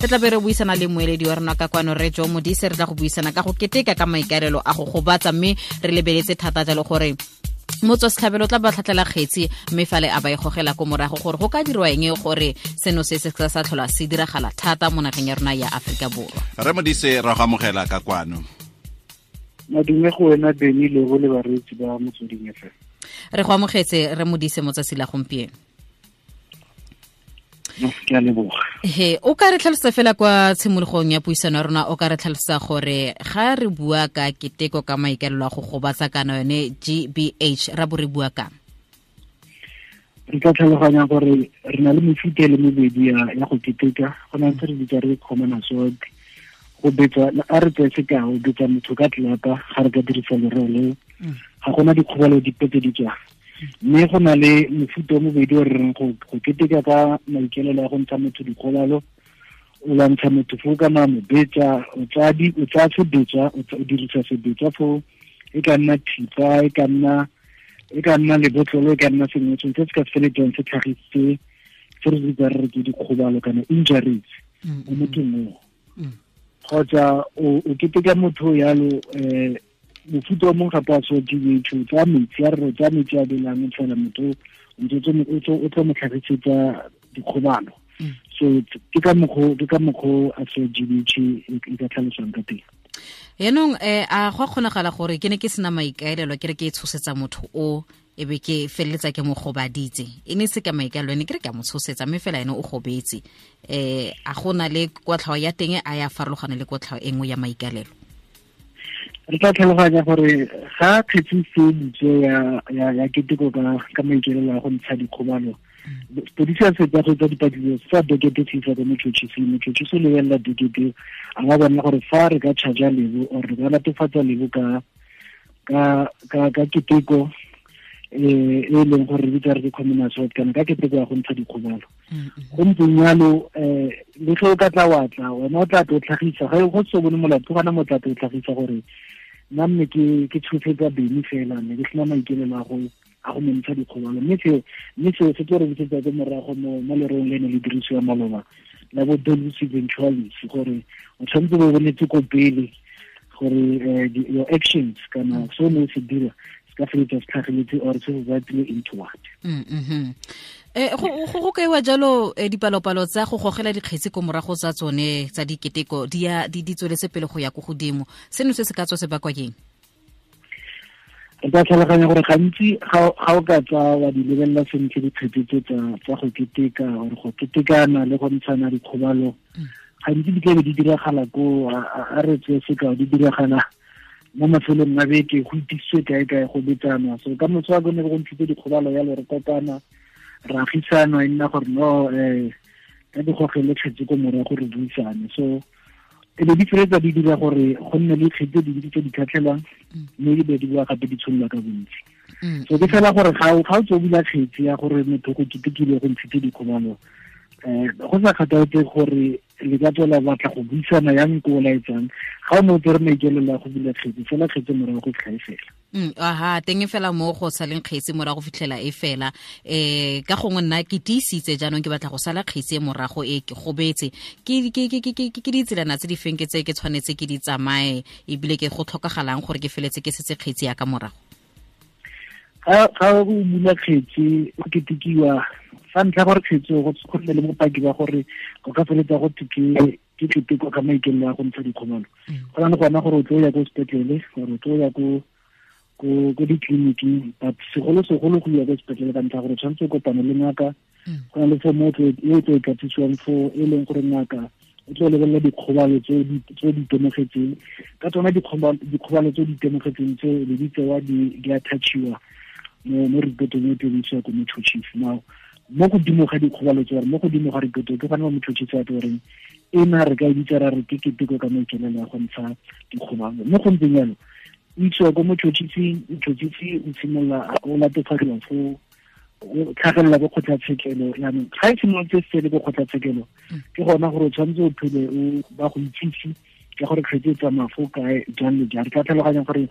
Re tla be re buisana le moeledi wa rona ka kwano, re Jo Modise. Re tla go buisana ka go keteka ka maikaelelo a go gobatsa, mme re lebeletse thata jalo gore motswa setlhabelo tla ba tlhatlhela kgetsi, mme fale a ba e gogela ko morago gore go ka dirwa eng gore seno se se sa tlhola se diragala thata mo nageng ya rona ya Aforika Borwa. Re Modise, ra go amogela ka kwano. Madume go wena, Beny, le go le bareetsi ba Motsweding FM. Re go amogetse, re Modise, mo tsatsi la gompieno. Ke a leboga. He, o ka re tlhalosa fela kwa tshimologong ya puisano ya rona, o ka re tlhalosa gore ga re bua ka keteko ka maikaelelo a go gobatsa kana yone GBH, ra bo re bua kang? Re tla tlhaloganya gore re na le mefuta e le mebedi ya go keteka. Go na se re bitsa re common assault, go betsa. A re tseye sekao, betsa motho ka tlelapa, ga re ka dirisa lereo leo, ga gona dikgobalo dipe tse di tswang. Mme go na le mofuta o mobedi o re reng go keteka ka maikaelelo a go ntsha motho dikgobalo. O lwantsha motho foo kana mo betsa, o tsaya sebetsa, o dirisa sebetsa foo, e ka nna thipa, e ka nna lebotlolo, e ka nna sengwe sengwe se se ka feletsang se tlhagisitse se re bitsa re re ke dikgobalo kana injuries mo mothong oo. Kgotsa o keteka motho yalo, mofuta o mongwe gape wa so GBH, o tsaya metsi, a re o tsaya metsi a belang, o tshela motho, ntse o tlo mo tlhagisetsa dikgobalo. So ke ka mokgwa a so GBH e ka tlhalosang ka teng. Yaanong a go a kgonagala gore ke ne ke sena maikaelelo, ke re ke e tshosetsa motho o, e be ke feleletsa ke mo gobaditse? E ne se ka maikaelelo, ene ke re ke a mo tshosetsa, mme fela ene o gobetse. A go na le kotlhao ya teng a ya farologana le kotlhao e nngwe ya maikaelelo? Re tla tlhaloganya gore ga kgetsi se butswe ya keteko ka maikaelelo a go ntsha dikgobalo, sepodisi a fetsa go etsa dipatlisiso sa dokete, se isa ko motšhotšhising. Motšhotšhisi o lebelela dokete, a ga bona gore fa re ka charge Lebo or re ka latofatsa Lebo ka keteko e leng gore re bitsa re ke common assault kana ka keteko ya go ntsha dikgobalo. Go ntseng yalo, le ge o ka tla wa tla, wena o tla tlo tlhagisa ga go se bone molato gana mo, tla tlo tlhagisa gore nna mme ke tshosetsa Beny fela, mme ke sena maikaelelo a go mo ntsha dikgobalo. Mme seo se tlo re busetsa ko morago mo lereong le ne le dirisiwa maloba la bo dolus eventualis, gore o tshwanetse bo bonetse ko pele gore your actions kana se o ne o se dira se ka feletsa se tlhageletse or se resultile into what. Go kaiwa jalo, dipalopalo tsa go gogela dikgetsi ko morago tsa tsone tsa diketeko di ya di tsweletse pele go ya ko godimo. Seno se se ka tswa se bakwa keng? Re ka tlhaloganya gore gantsi ga o ka tsa wa di lebelela sentle dikgetsi tse tsa go keteka or go ketekana le go ntshana dikgobalo, gantsi di tlabe di diragala ko, a re tseye sekao, di diragala mo mafelong a beke, go itisitswe kae kae, go betsanwa. So ka motho wa bone go ntshitse dikgobalo yalo, re kopana, re agisana, e nna gore no, ka di gogele kgetsi ko morago, re buisane. So e be di feletsa di dira gore go nne le kgetsi tse dintsi tse di tlhatlhelwang, mme di be di boa gape di tshololwa ka bontsi. So ke fela gore ga o tse o bula kgetsi ya gore motho go ketekile, go ntshitse dikgobalo, go sa kgathaletse gore le ka tswela batla go buisana yang ko o laetsang, ga o ne o tsere maikaelelo a go bula kgetsi fela, kgetsi morago go fitlha e fela. Aha, teng e fela mo go saleng kgetsi morago fitlhela e fela. Ka gongwe nna ke tiisitse, jaanong ke batla go sala kgetsi e morago e ke gobetse, ke ditselana tse di feng ke tse ke tshwanetse ke di tsamaye, ebile ke go tlhokagalang gore ke feletse ke setse kgetsi ya ka morago? Ga o bula kgetsi o ketekiwa, sa ntlha gore kgetsi go nne le bopaki ba gore go ka feletsa go thwe ke keteko ka maikaelelo a go ntsha dikgobalo. Go na le gona gore o tlo ya ko sepetlele gore o tlo ya ko ditleliniking, but segolo segolo go ya ko sepetlele ka ntlha gore tshwanetse o kopane le ngaka. Go na le form e o tlo e tlatsisiwang fo, e leng gore ngaka o tlo lebelela dikgobalo tse di itemogetseng ka tsona. Dikgobalo tse di itemogetseng tse le di tsewa, di attachiwa mo reportong e tlo isiwa ko motšhotšhisi. Now mo godimo ga dikgobalo tse, mo godimo ga reporto, ke gona mo motšhotšhisi a tlo goreng ena re ka e bitsa ra re ke keteko ka maikaelelo a go ntsha dikgobalo. Mo go ntseng jalo, o isiwa ko motšhotšhising, motšhotšhisi o simolola o latofadiwa fo, o tlhagelela ko kgotlatshekelo. Yaanong ga e simolotse se le ko kgotlatshekelo, ke gona gore o tshwanetse o phele o ba go itsise ka gore kgetse e tsamaya fo kae, jang le jang. Re tla tlhaloganya gore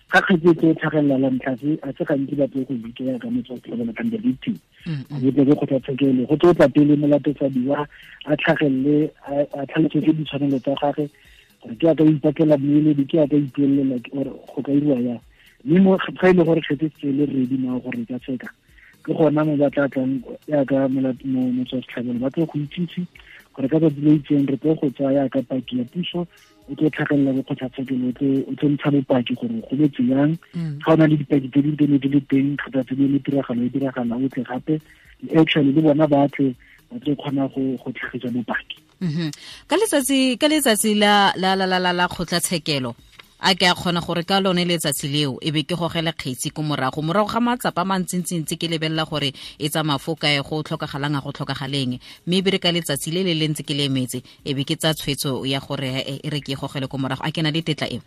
Ga kgetse e tlhagelela la ntlha se a se gantsi ba tle go bitsa ka motho wa tlhabela kang the victim. Go tle go kgotlatshekelo go tlo tla pele molatofadiwa a tlhagelele a tlhalosetse ditshwanelo tsa gagwe gore ke a ka ipatlela mmueledi, ke a ka ipuelela or go ka iriwa yang. Mme mo ga e le gore kgetse se le ready now gore e ka tsheka, ke gona mo ba tla tlang yaka motswa setlhabelo ba tlo go itsise gore ka tsatsi le itseng re tlo go tsaya yaka paki ya puso, o tlo tlhagelela bo kgotlatshekelo, o tlo ntsha bopaki gore go betse yang. Ga o na le dipaki tse di ne di le teng kgotsa tse di le tiragalo e diragala, o tle gape actually le bona ba tle ba tlo kgona go tlhagisa bopaki. Ka letsatsi la la la la la kgotlatshekelo a ke a kgona gore ka lone letsatsi leo e be ke gogele kgetsi ko morago ga matsapa a mantsintsi ke lebelela gore e tsamaya fo kae, go tlhokagalang a go tlhokagaleng, mme e be re ka letsatsi le le le ntse ke le emetse e be ke tsa tshwetso ya gore e re ke gogele ko morago. A ke na le tetla eo?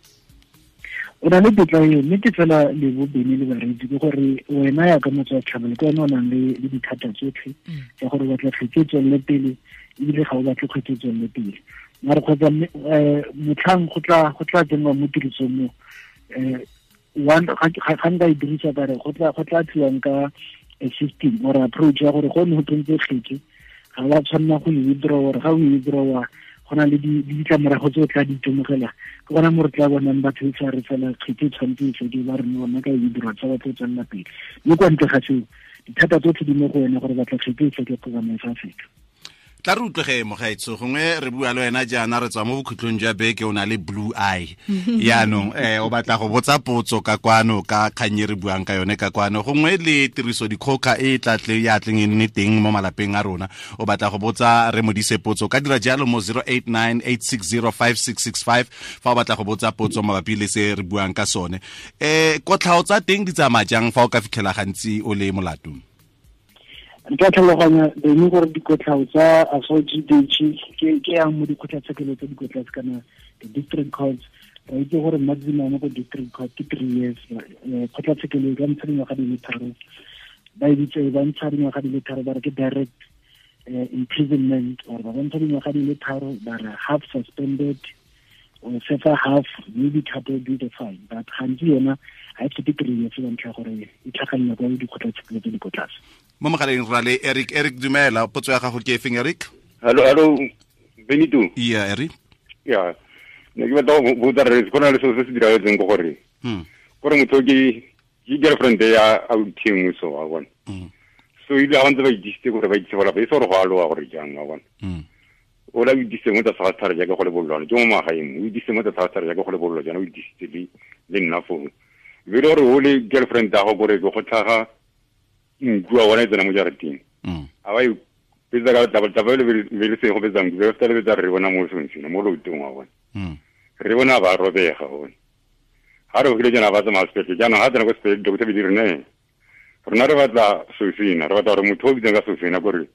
O na le tetla eo, mme ke fela le bobeni le bareetsi ke gore wena ya ka motho wa tlhabelo ke wena o nang le dithata tsotlhe tsa gore o batla kgetsi e tswelele pele ebile ga o batle kgetsi e tswelele pele. Mare kgotsa motlhang go tla tsenngwa mo tirisong mo, one ga nka e dirisa ka re go tla tliwang ka a system or approach ya gore go ne go tsentse kgetse ga wa tshwanela go e withdraw, or ga o e withdraw go na le ditlamorago tse o tla di itemogela. Ke gona mo re tla bonang batho e sa re fela kgetse e tshwanetse e fede, ba re no bona ka e withdraw tsa batho e tswelela pele. Mme kwa ntle ga seo dithata tsotlhe di mo go wena gore batla kgetse e feke kgotsa mafa a feke. Tla re utlwege mogaetsho, gongwe re bua le wena jaana re tswa mo bokhutlong jwa beke, o na le blue eye. Yaanong o batla go botsa potso ka kwano ka kgang e re buang ka yone ka kwano, gongwe le tiriso dikgoka e tla tle ya tleng e nne teng mo malapeng a rona, o batla go botsa re Modise potso, ka dira jalo mo 0898605665 fa o batla go botsa potso mabapi le se re buang ka sone. Kotlhao tsa teng di tsamaya jang fa o ka fitlhela gantsi o le molato? Nka tlhaloganya bene gore dikotlhao tsa assault GBH ke yang mo dikgotlatshekelo tse di ko tlase kana the district courts. Re itse gore maximum ko district court ke 3 years. Kgotlatshekelo e ka ntsha dingwaga di le tharo, ba e bitse ba ntsha dingwaga di le tharo ba re ke direct imprisonment, or ba ntsha dingwaga di le tharo ba re half suspended or sefa half, maybe coupled with a fine. But gantsi yona ga e fete 3 years ka ntlha ya gore e tlhagelela kwa dikgotlatshekelo tse di ko tlase. Mo mogaleng ra le Eric. Eric, dumela, potso ya gago ke efeng, Eric? Hello, Benito. Yeah, Eric. Yeah. Ne ke batla go botsa re go na le selo se se diragetseng ko gore. Gore motho ke girlfriend ya authi nngwe so wa bona. So ile ga ntse ba itse gore ba itse gore ba itse gore go a loa gore jang wa bona. O la itse mo tsa sa thare jaaka go le bollo, ke mo magaeng, o itse mo tsa sa thare jaaka go le bollo jaana o itse le nna foo. Be le gore o le girlfriend ya gago gore go tlhaga nku wa bona e tsena mo jarateng. A ba e betsa ka taba le be le se go betsa nku, be le betsa re bona mo seng mo loutong wa bona. Re bona ba robega bona. Ha re go jana ba tsamaya sepetlele, jaanong ha tsena ko sepetlele, doctor be di re ne. Rona re batla Sofina, re batla gore motho o bitsang ka Sofina gore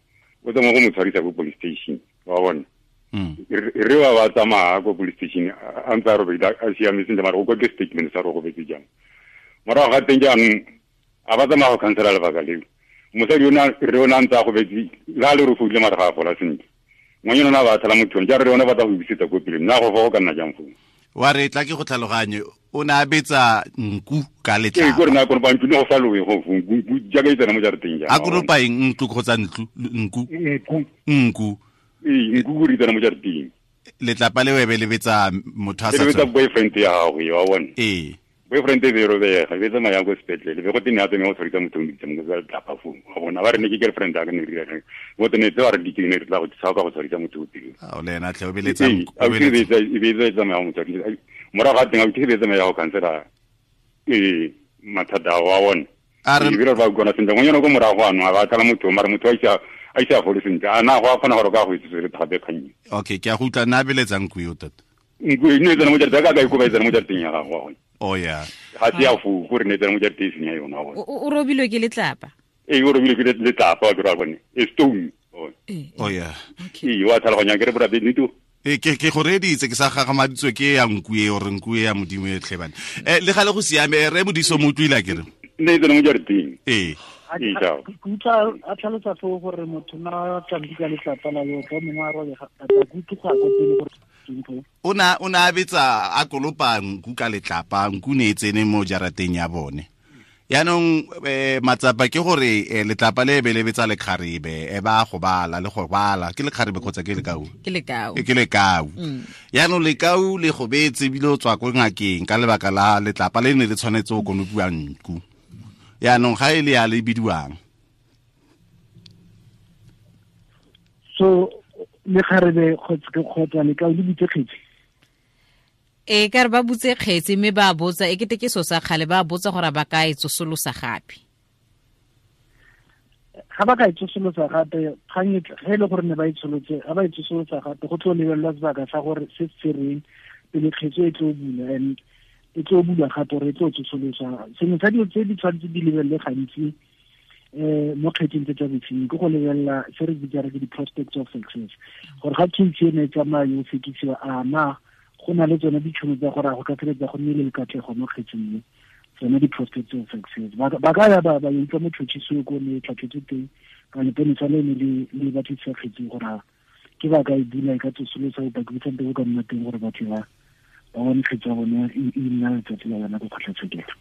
o tsamaya go mo tshwarisa ko police station, wa bona. Re ba ba tsamaya ko police station, a ntse a robedi, a siame sentle, mara go kwa ke statement sa re go betse jang. Morago ga teng jaanong, a ba tsamaya go khansela lebaka leo. Mosadi re o na ntse a go betse, le ha le re foile mara ga a fola sentle. Ngwanyana o ne a ba tshela motho one, jaanong re yone ba tla go busetsa ko pele, nna go fa go ka nna jang foo? Wa re tla ke go tlhaloganye, o ne a betsa nku ka letlapa. Ee, ke gore na konopa ntlo, ne go sa lowe go fo, nku jaaka e tsena mo jarateng jaana. A konopa eng, ntlo kgotsa ntlo, nku? Nku. Nku. Ee, nku go re tsena mo jarateng. Letlapa le webe le betsa motho a sa Le betsa tshwana. boyfriend ya gago, wa bona. Ee. Boyfriend e be e robega, e be tsamaya ko sepetlele, be go tene a tsamaya go tshwarisa motho o mo bitsa mo letlapa foo. Wa bona, ba re ne ke girlfriend ya ka, ne re dira eng? Bo tene tse ba re di ke ne re tla go tshaba ka go tshwarisa motho o teng. A o le ena tlhe, o beletsa Ee, nku, a o o ke beletsa. betsa, e be e tsamaya go mo tshwarisa. Morago ga teng, a o ke be tsamaya go khansela, ee, mathata a wa bona. A re Ee, ebile re ba utlwana sentle. Ngwanyana ko morago ano, a ba tlala motho, mara motho a ise a fole sentle. A na go a kgona gore o ka go itse se re gape kgang e? Okay, ke a go utlwa, nna a beletsa nku eo tota. Nku e ne e tsena mo jarateng, ka ka ikoba e tsena mo jarateng ya gago, wa bona. Oh, yeah. Ga se ya foo, gore ne e tsena mo jarateng e seng ya yona, wa bona. O robilwe ke letlapa? Ee, o robilwe ke letlapa, wa ke re wa bone. E stone, wa bona. Ee, Oh, yeah. Okay. Ee, wa tlhaloganya, ke re bora Benito. Ee, ke go reeditse, ke sa gagamaditswe ke ya nku e, ore nku e ya Modimo e tlhe bane. Le gale go siame, re Modiso mo utlwile a ke re? Ne e tsena mo jarateng. Ee. Ee, ciao. Ke utlwa a tlhalosa foo gore motho na tla nku ka letlapa la yo, ka mongwe a robega, a tla ke utlwe go ya ko pele gore O na betsa a kolopa nku ka letlapa, nku ne e tsene mo jarateng ya bone. Yaanong matsapa ke gore letlapa le be le betsa lekgarebe, e ba go bala le go bala ke lekgarebe kgotsa ke lekau? Ke lekau. Ke lekau. Yaanong lekau le go betse ebile o tswa ko ngakeng ka lebaka la letlapa le ne le tshwanetse go konopiwa nku. Yaanong ga e le ya le bidiwang. So lekgarebe kgotsa lekau le bitse kgetsi. E ka re ba butse kgetsi mme ba botsa e kete ke so sa kgale, ba botsa gore ba ka e tsosolosa gape. Ga ba ka e tsosolosa gape, kgang e ge e le gore ne ba e tsholotse, ga ba e tsosolosa gape go tlo lebelelwa sebaka sa gore se se reng pele kgetsi e tlo bula, and e tlo bula gape gore e tlo tsosolosa. Sengwe sa dilo tse di tshwanetse di lebelele gantsi mo kgetsing tse tsa bosenyi ke go lebelela se re bitsa re ke di-prospects of success, gore ga case eno e tsamaya yo sekisiwa, a na go na le tsone ditšhono tsa gore a go ka feleletsa go nnile le katlego mo kgetsing e, tsone di-prospects of success. Ba ka ya ba utlwa motšhotšhisi ko ne tlhatlhetswe teng ka leponesa le ne le batlisisa kgetsing gore ke ba ka e bula e ka tsosolosa bopaki bo santse bo ka nna teng gore batho ba bone kgetsi ya bone e nna letsatsi la yona ko kgotlatshekelo.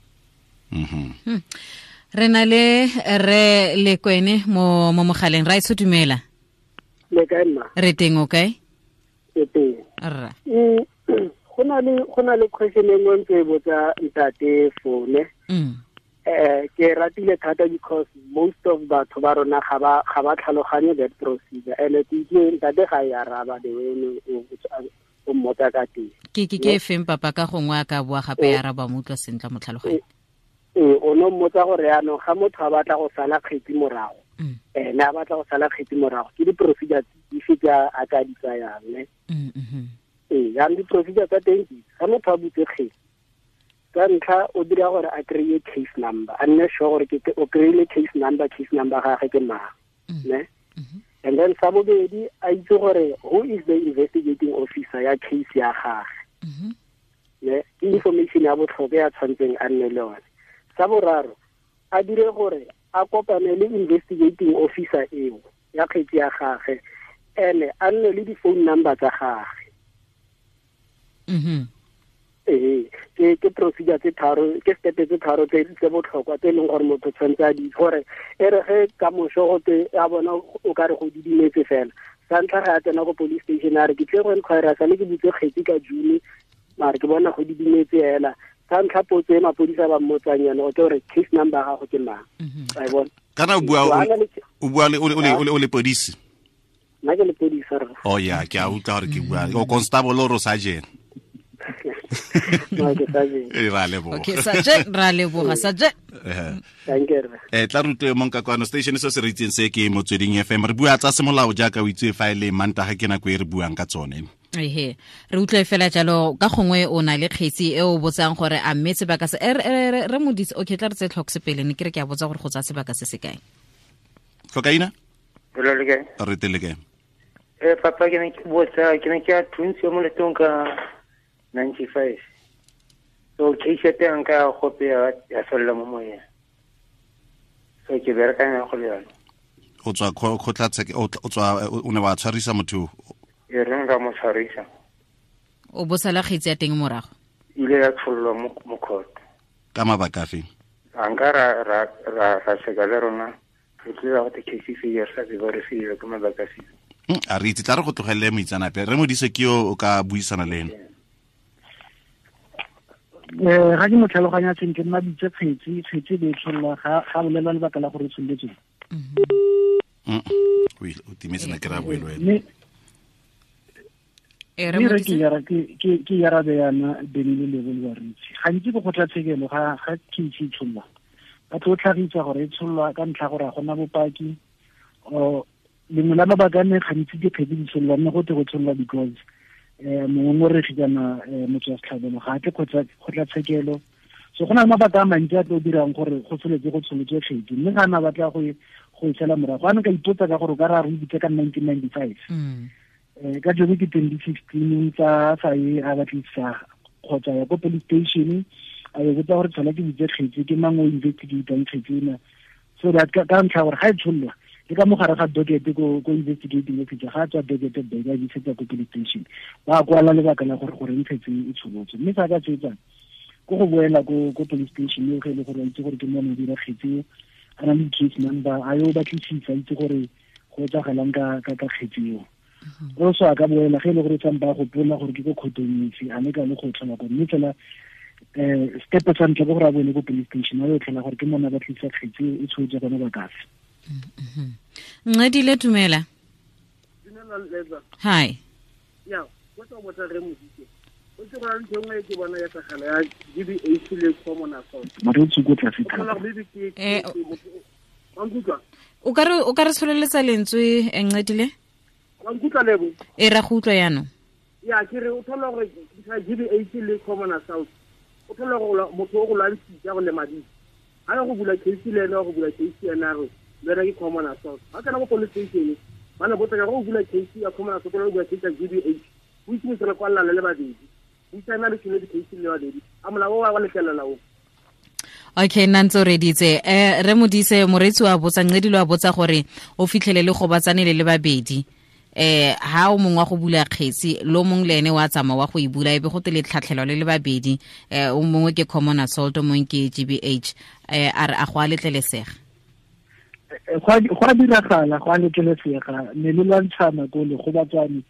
Re na le re Lekwene mo mogaleng. Ra itse dumela. Le kae mma? Re teng, o kae? Ke teng. Rra. Go na le question e nngwe ntse e botsa ntate Fone. Ke ratile thata because most of batho ba rona ga ba tlhaloganye that procedure, and ke itse ntate ga e araba the way o mmotsa ka teng. Ke ke feng papa ka gongwe a ka boa gape ya araba mo utlwa sentle mo tlhaloganye. O no mmotsa gore yaanong ga motho a batla go sala kgetsi morago, ene a batla go sala kgetsi morago, ke di-procedure dife tse a ka di tsayang, ne? Jaanong di-procedure tsa teng ke ga motho a butse kgetsi, ka ntlha o dira gore a kry-e case number, a nne sure gore o kry-ile case number gagwe ke mang, ne? And then sa bobedi a itse gore who is the investigating officer ya case ya gagwe, ne? Ke information ya botlhokwa ya tshwanetseng a nne le yone. Sa boraro a dire gore a kopane le investigating officer eo ya kgetsi ya gagwe, ene a nne le di-phone number tsa gagwe. Ke procedure tse tharo, ke step tse tharo tse botlhokwa tse e leng gore motho tshwanetse a di gore e re ge ka moso go te a bona o ka re go didimetse fela. Sa ntlha ga a tsena ko police station a re ke tle go enquire sa le ke butse kgetsi ka June, mare ke bona go didimetse fela. Sa ntlha potso e mapodisa ba mmotsang yone go ke gore case number ya gago ke mang. Wa e bona? Kana o bua o le podisi? Nna ke le podisa rra. Oh ya, ke a utlwa gore ke bua. O constable o sergeant? No, ke sergeant. Ra leboga. Okay, sergeant, ra leboga, sergeant. Thank you. Tla rutwe mong ka kwano station se se re itseng se ke Motsweding FM. Re bua tsa semolao jaaka o itse fa e le Mantaga ke nako e re buang ka tsone. Ehe, re utlwe fela jalo ka gongwe o na le kgetsi e o botsang gore a mme sebaka se re modise. Okay, tla re tse tlhoks pele ne ke re ke a botsa gore go tsaya sebaka se se kae. Tlhokaina? Re Re tele kae? Papa ke ne ke botsa, ke ne ke a thuntse mo letong ka 95. So case ya teng ka gope ya fella mo moyeng. So ke berekanya go le yone. O tswa kgotlatshekelo, o tswa o ne wa tshwarisa motho? E reng ka mo tshwarisa. O bosala kgetsi ya teng morago? Ile ya tshollwa mo court. Ka mabaka afe? A nka ra seka le rona, re tlile go te case e re sa tsebe gore se ke mabaka afe. A re itse, tla re go tlogelele moitseanape. Re Modise ke yo o ka buisana le ene. Ga ke mo tlhaloganya sentle, nna bitse kgetsi le tshollwa ga bolelwa lebaka la gore e tsholletswe. O timetse na ke ra bue le wena. Mme ke arabe yana Bene le Lebo le bareetsi. Gantsi ko kgotlatshekelo ga case e tshollwa, ba tlo tlhagisa gore e tshollwa ka ntlha gore ga gona bopaki. Lengwe la mabaka a ne gantsi dikgetsi di tshollwa, mme go te go tshollwa because mongongoregi kana motho wa setlhabelo ga a tle kgotlatshekelo. So go na le mabaka a mantsi a tlo dirang gore go tsholetse go tsholetswe kgetsi, mme ga na batla go e sala morago. A ne ka ipotsa ka gore o ka re a re ibitse ka 1995. Ka jone ke 2016 tsa sa e a batlisisa kgotsa ya ko police station a e botsa gore tshola ke bitse kgetsi ke mang o investigatang kgetsi ena, so that ka ntlha gore ga e tshollwa Le ka mogare ga docket ko investigating officer ga tswa docket ba e isetsa ko police station, ba kwala lebaka la gore ntshetse e tsholotse. Mme sa ka tsetsang ko go boela ko police station eo ge e le gore a itse gore ke mone o dira kgetse, a na le case number, a yo batlisisa, a itse gore go etsagalang ka kgetse eo. Also a ka boela ge e le gore tsampa gopola gore ke ko kgotong efe, a ne ka le go tlhola ko, mme fela step sa ntlha ke gore a boele ko police station a yo tlhola gore ke mone a batlisa kgetse e tshotse gone ba kafe. Ncedile, dumela. Dumela Leza. Hi. Ya, go tsa botsa re Modise. O tse go ntse nngwe ke bona ya tlhagala ya GBH le common assault. Maretsi go tla fitha. O ka re tsholeletsa lentswe, Ncedile? Wa nkutlwa Lebo? E ra go utlwa jaanong. Ya, ke re o thola gore GBH le common assault. O thola gore motho o go lwantshitse go lemaditse. Ha go bula case le ena, go bula case ena re le ke common assault. Ha kana go police station ba ne botsa go bula case ya common assault, go bula case ya GBH. O itse mo tsela kwa le babedi. O itse na le tshone di case le babedi. A molao wa letlelela o. Okay, nna ntse o reditse. Re Modise, moreetsi wa botsa, Ncedile wa botsa gore o fitlhele le go batsane le babedi. Ha o mongwe wa go bula kgetsi, lo mongwe le ene wa tsamaya wa go e bula, ebe go te le tlhatlhelwa le le babedi. O mongwe ke common assault, o mongwe ke GBH. A re a go a letlelesega? Go a diragala, go a letlelesega. Ne le lwantshana ko le go batsane.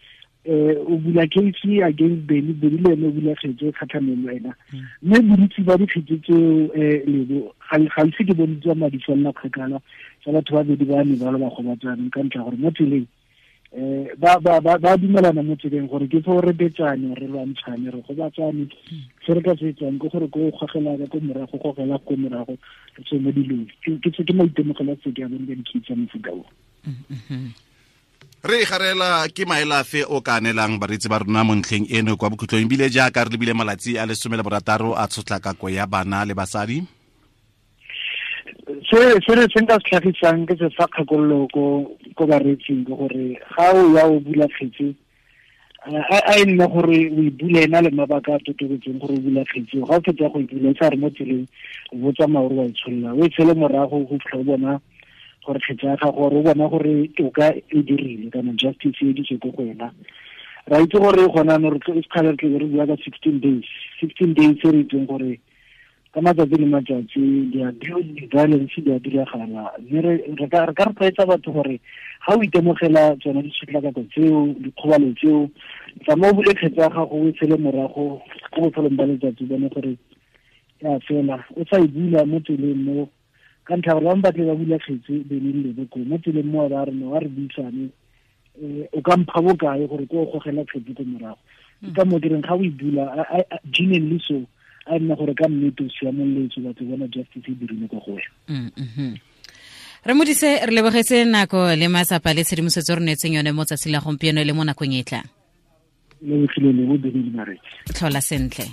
O bula case against Benny, Benny le ene o bula kgetse kgatlhanong le wena. Mme bontsi ba dikgetse tseo Lebo ga ise ke bone tswa madi felela kgakala tsa batho ba babedi ba ne ba le ba gobatsaneng ka ntlha gore mo tseleng ba dumelana mo tseleng gore ke fo re betsane, re lwantshane, re gobatsane. Se re ka se etsang ke gore ko gogela ka ko morago, gogela ko morago, re tswe mo dilong. Ke maitemogelo a se ke a bone ka dikgetse tsa mofuta o. Re garela ke maelafe o ka anelang bareetsi ba rona mo ntlheng eno kwa bokhutlong, ebile jaaka re lebile malatsi a 16 a tshotlakako ya bana le basadi. Se re se nka se tlhagisang ke se fa kgakololo ko bareetsing ke gore ga o ya o bula kgetse, a e nne gore o e bule ena le mabaka a totobetseng gore o bula kgetse. Ga o fetsa go e bula, e sa re mo tseleng o bo tsamaya gore wa e tsholola, o e tshele morago go fitlha o bona gore kgetse ya gago, gore o bona gore toka e dirile kana justice e ditswe ko go wena. Ra itse gore gona no re sekgale re tle re bua ka 16 days. 16 days re itseng gore ka matsatsi le matsatsi di-violence di a diragala. Mme re ka rotloetsa batho gore ga o itemogela tsone ditshotlakako tseo, dikgobalo tseo, tsamaya o bule kgetse ya gago, o e tshele morago ko bofelong ba letsatsi, bone gore ya fela. O sa e bula mo tseleng mo, ka ntlha gore ba batle ba bula kgetse Benny le Lebo ko mo tseleng mo ba re no wa re buisane, o ka mpha bokae gore ko o gogela kgetse ko morago. Ke ka mo ke reng ga o e bula genuinely, so a nna gore ka nnete o siamoletswe, batho bona justice e dirile ko go wena. Re Modise, re lebogetse nako le matsapa le tshedimosetso re neetseng yone mo tsatsi la gompieno le mo nakong e tlang. Lebogile Lebo, Benny le bareetsi. Tlhola sentle.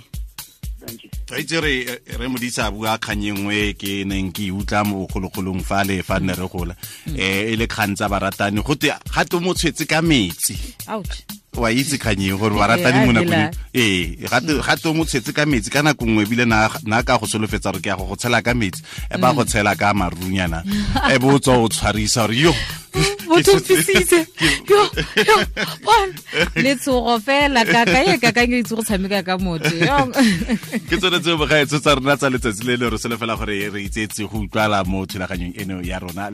Itse re Modise a bua kgang e nngwe ke neng ke utlwa mo bogologolong fa le fa nne re gola, e le kgang tsa baratani, go te ga te mo tshwetse ka metsi. Ouch. Wa itse kgang e gore baratani mo nakong ga te mo tshwetse ka metsi ka nako nngwe, ebile na ka go solofetsa gore ke ya go tshela ka metsi, e ba go tshela ka marunyana, e bo tswa o tshwarisa gore yo motho fisitse yo yo bon letshogo fela kaka e kakanyo itse go tshameka ka motho yo. Ke tsone tseo bogaetso tsa rona tsa letsatsi le le re solofela gore re itseetse go utlwala mo thulaganyong eno ya rona.